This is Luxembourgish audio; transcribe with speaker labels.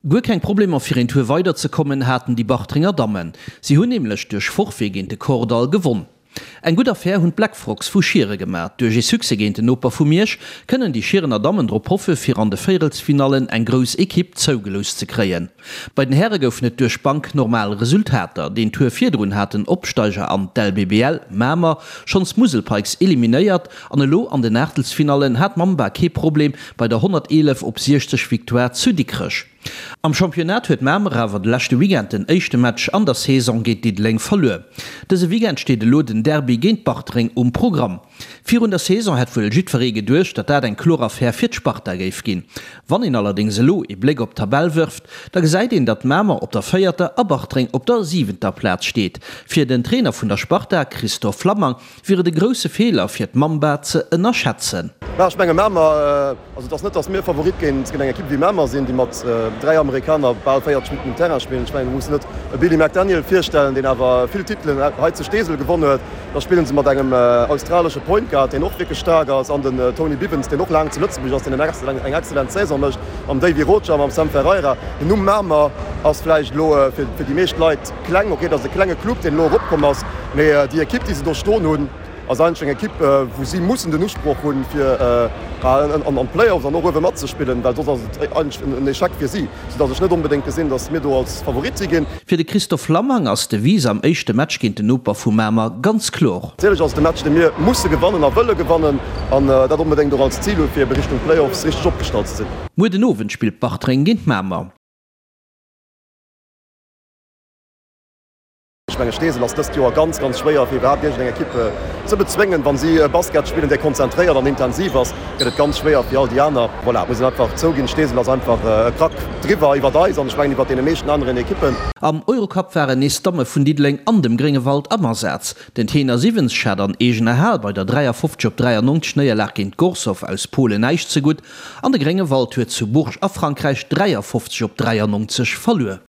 Speaker 1: Guer keng Problemer fir een Tour weider ze kommen haten déi Bartrenger Dammen. Si hunn nämlech duerch Forfait géint de Kordall gewonn. Eng gutt Affär hunn d'Black Frogs vu Schiere gemaat. Duerch ee Succès géint den Noper vu Miersch kënnen déi Schierener Dammen drop hoffe fir an de Véierelsfinallen eng grouss Ekipp zougelooss ze kréien. Bei den Häre goufen et duerch d'Bank normal Resultater. Deen Tour virdrun hat den Opsteiger an d'LBBL, Mamer, schonns d'Musel Pikes eliminéiert An elo an den Aachtelsfinallen hat Mamba kee Problem bei der 111 op 60 Victoire zu Dikrech. Am Championnat huet Mamer awer de leschte Weekend den éischte Match an der Saison géint Diddeleng verluer. Dëse Weekend steet elo den Derby géint Bartreng um Programm. Virun der Saison hätt wuel jiddweree geduecht, datt dat eng kloer Affär fir d'Sparta géif ginn. Wann een allerdéngs elo ee Bléck op d'Tabell wërft, da gesäit een, datt Mamer op der véierter a Bartreng op der siwenter Plaz steet. Fir den Trainer vun der Sparta, Christophe Flammang, wier et e grousse Feeler fir d'Mamba ze ënnerschätzen.
Speaker 2: Mä ech menge Mamer, also et ass net, datt mir Favorit géint eng Ekipp wéi Mamer sinn, déi mat 3 Amerikaner bal 40 Minutten um Terrain spillen. Ech menge mir mussen net e Billy McDaniel virstellen, deen awer vill Titelen hei zu Steesel gewonn huet. Da spille se mat engem australesche Point Guard, deen och wierklech staark ass, an den Tony Bivens, deen och laang zu Lëtzebuerg ass, deen eng excellent Saison mécht, mam Davy Rocha, mam Sam Ferreira. Den Numm Mamer ass vläicht elo fir déi meescht Leit kleng, ok, et ass e klenge Club, deen elo eropkomm ass, mee déi Ekipp, déi se do stoen hunn, ass eigentlech eng Ekipp, wou si mussen den Usproch hunn, fir an d'Playoffs an och uewe matzespillen, well soss ass et eigentlech en Echec fir si, soudass ech net onbedéngt gesinn, dass mir do als Favorit si ginn.
Speaker 1: Fir de Christophe Lammang ass d'Devise am éischte Match géint den Noper vu Mamer ganz kloer.
Speaker 2: Natierlech ass et e Match, dee mir musse gewannen a wëlle gewannen an dat onbedéngt och als Zil hu fir ebe Richtung Playoffs richteg opgestallt ze sinn.
Speaker 1: Muer den Owend spillt Bartreng géint Mamer.
Speaker 2: Ech menge Steesel ass dëst Joer ganz, ganz schwéier fir iwwerhaapt iergendeng Ekipp ze bezwéngen. Wa si Basket spillen, dee konzentréiert an intensiv ass, gëtt et ganz schwéier fir all déi aner. Voilà, et muss een einfach zouginn, Steesel ass einfach e Krack driwwer iwwert eis an ech mengen iwwert deene meeschten aneren Ekippen.
Speaker 1: Am Eurocup waren nees d'Damme vun Diddeleng an dem Gréngewald am Asaz. Den Tenor Siwens hat an eegener Hal bei der 53 op 93 Néierlag géint Gorzow aus Polen näischt zegutt an de Gréngewald huet zu Bourges a Frankräich 53 op 93 verluer.